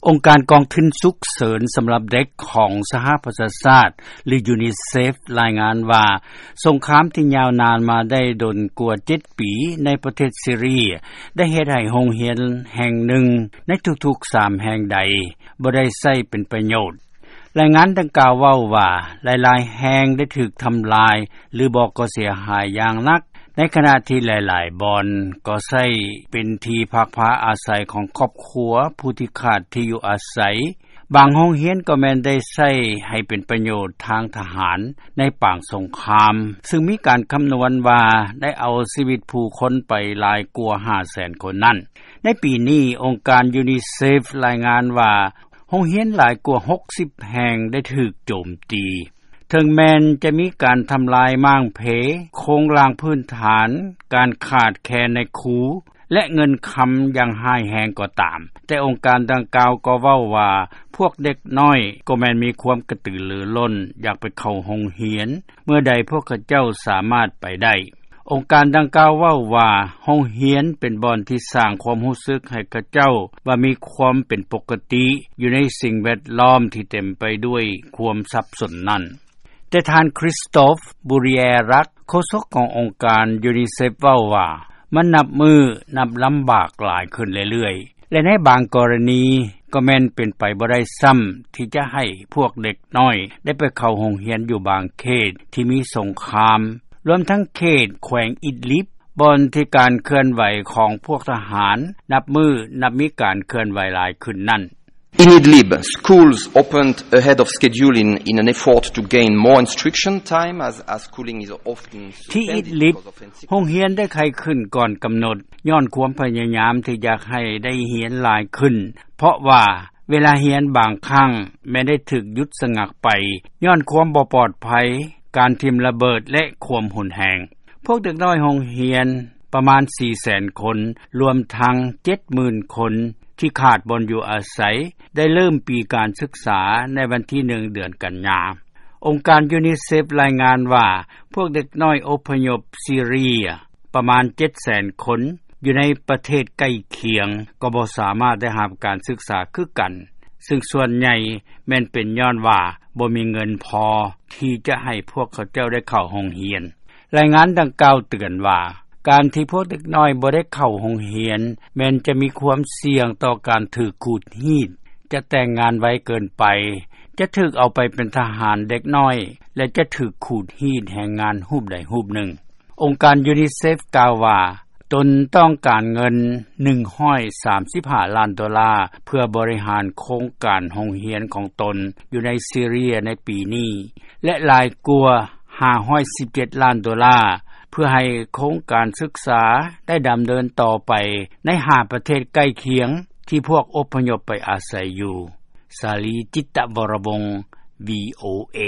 ອົງການກອງທຶນສຸກເສີນສຳລັບເດັກຂອງສະຫະປະຊາຊາດ ຫຼື UNICEF ລາຍງານວ່າ ສົງຄາມທີ່ຍາວນານມາໄດ້ດົນກວ່າເຈັດປີ ໃນປະເທດຊີເຣຍ ໄດ້ເຮັດໃຫ້ໂຮງຮຽນແຫ່ງໜຶ່ງໃນທຸກໆສາມແຫ່ງໃດ ບໍ່ໄດ້ໃຊ້ເປັນປະໂຫຍດ. ລາຍງານດັ່ງກ່າວເວົ້າວ່າ ຫຼາຍໆແຫ່ງໄດ້ຖືກທຳລາຍ ຫຼືບໍ່ກໍເສຍຫາຍຢ່າງໜັກ ໃນຂະນະທີ່ຫຼາຍໆບ່ອນກໍໃຊ້ເປັນທີ່ພັກພາອາໄສຂອງຄອບຄົວຜູ້ທີ່ຂາດທີ່ຢູ່ອາໄສ. ບາງໂຮງຮຽນກໍແມ່ນໄດ້ໃຊ້ໃຫ້ເປັນປະໂຫຍດທາງທະຫານໃນປາງສົງຄາມ ຊຶ່ງມີການຄຳນວນວ່າໄດ້ເອົາຊີວິດຜູ້ຄົນໄປຫຼາຍກວ່າຫ້າແສນຄົນນັ້ນ. ໃນປີນີ້ ອົງການ UNICEF ລາຍງານວ່າ ໂຮງຮຽນຫຼາຍກວ່າຫົກສິບແຫ່ງໄດ້ຖືກໂຈມຕີ. ເຖິງແມ່ນຈະມີການທຳລາຍມ້າງເພ, ໂຄງລ່າງພື້ນຖານ, ການຂາດແຄນໃນຄູ ແລະ ເງິນຄຳຢ່າງຮ້າຍແຮງກໍຕາມ, ແຕ່ອົງການດັ່ງກ່າວກໍເວົ້າວ່າ ພວກເດັກນ້ອຍກໍແມ່ນມີຄວາມກະຕືລືລົ້ນ ຢາກໄປເຂົ້າໂຮງຮຽນ ເມື່ອໃດພວກເຂົາເຈົ້າສາມາດໄປໄດ້. ອົງການດັ່ງກ່າວເວົ້າວ່າ ໂຮງຮຽນເປັນບ່ອນທີ່ສ້າງຄວາມຮູ້ສຶກໃຫ້ເຂົາເຈົ້າວ່າມີຄວາມເປັນປົກກະຕິ ຢູ່ໃນສິ່ງແວດລ້ອມທີ່ເຕັມໄປດ້ວຍຄວາມສັບສົນນັ້ນ. ແຕ່ທ່ານ Christophe Bourriérac ໂຄສົກຂອງອົງການ UNICEF ເວົ້າວ່າ ມັນນັບມື້ນັບລຳບາກຫຼາຍຂຶ້ນເລື້ອຍໆ ແລະ ໃນບາງກໍລະນີກໍແມ່ນເປັນໄປບໍ່ໄດ້ຊ້ຳ ທີ່ຈະໃຫ້ພວກເດັກນ້ອຍໄດ້ໄປເຂົ້າໂຮງຮຽນຢູ່ບາງເຂດທີ່ມີສົງຄາມ ລວມທັງເຂດແຂວງອິດລິບ ບ່ອນທີ່ການເຄື່ອນໄຫວຂອງພວກທະຫານ ນັບມື້ນັບມີການເຄື່ອນໄຫວຫຼາຍຂຶ້ນນັ້ນ. In Idlib, schools opened ahead of schedule in, in an effort to gain more instruction time, as, as schooling is often ທີ່ອິດລິບ suspended because of insufficient ໂຮງຮຽນໄດ້ໄຂຂຶ້ນກ່ອນກຳນົດ ຍ້ອນຄວາມພະຍາຍາມທີ່ຢາກໃຫ້ໄດ້ຮຽນຫຼາຍຂຶ້ນ ເພາະວ່າເວລາຮຽນບາງຄັ້ງແມ່ນໄດ້ຖືກຢຸດສະງັກໄປ ຍ້ອນຄວາມບໍ່ປອດໄພ, ການຖິ້ມລະເບີດ ແລະ ຄວາມຮຸນແຮງ. ພວກເດັກນ້ອຍໂຮງຮຽນປະມານສີ່ແສນຄົນ ລວມທັງເຈັດໝື່ນຄົນ ທີ່ຂາດບ່ອນຢູ່ອາໄສ ໄດ້ເລີ່ມປີການສຶກສາໃນວັນທີໜຶ່ງ ເດືອນກັນຍາ. ອົງການ UNICEF ລາຍງານວ່າ ພວກເດັກນ້ອຍອົບພະຍົບຊີເຣຍປະມານເຈັດແສນຄົນ ຢູ່ໃນປະເທດໃກ້ຄຽງ ກໍບໍ່ສາມາດໄດ້ຮັບການສຶກສາຄືກັນ, ຊຶ່ງສ່ວນໃຫຍ່ແມ່ນເປັນຍ້ອນວ່າບໍ່ມີເງິນພໍທີ່ຈະໃຫ້ພວກເຂົາເຈົ້າໄດ້ເຂົ້າໂຮງຮຽນ. ລາຍງານດັ່ງກ່າວເຕືອນວ່າ ການທີ່ພວກເດັກນ້ອຍບໍ່ໄດ້ເຂົ້າໂຮງຮຽນ ແມ່ນຈະມີຄວາມສ່ຽງຕໍ່ການຖືກຂູດຮີດ, ຈະແຕ່ງງານໄວເກີນໄປ, ຈະຖືກເອົາໄປເປັນທະຫານເດັກນ້ອຍ ແລະ ຈະຖືກຂູດຮີດແຮງງານຮູບໃດຮູບໜຶ່ງ. ອົງການ UNICEF ກ່າວວ່າ ຕົນຕ້ອງການເງິນໜຶ່ງຮ້ອຍສາມສິບຫ້າລ້ານໂດລາ ເພື່ອບໍລິຫານໂຄງການໂຮງຮຽນຂອງຕົນຢູ່ໃນຊີເຣຍໃນປີນີ້ ແລະ ຫຼາຍກວ່າຫ້າຮ້ອຍສິບເຈັດລ້ານໂດລາ ເພື່ອໃຫ້ໂຄງການສຶກສາໄດ້ດຳເນີນຕໍ່ໄປໃນຫ້າປະເທດໃກ້ຄຽງທີ່ພວກອົບພະຍົບໄປອາໄສຢູ່. ສາລີ ຈິດຕະວໍລະວົງ VOA.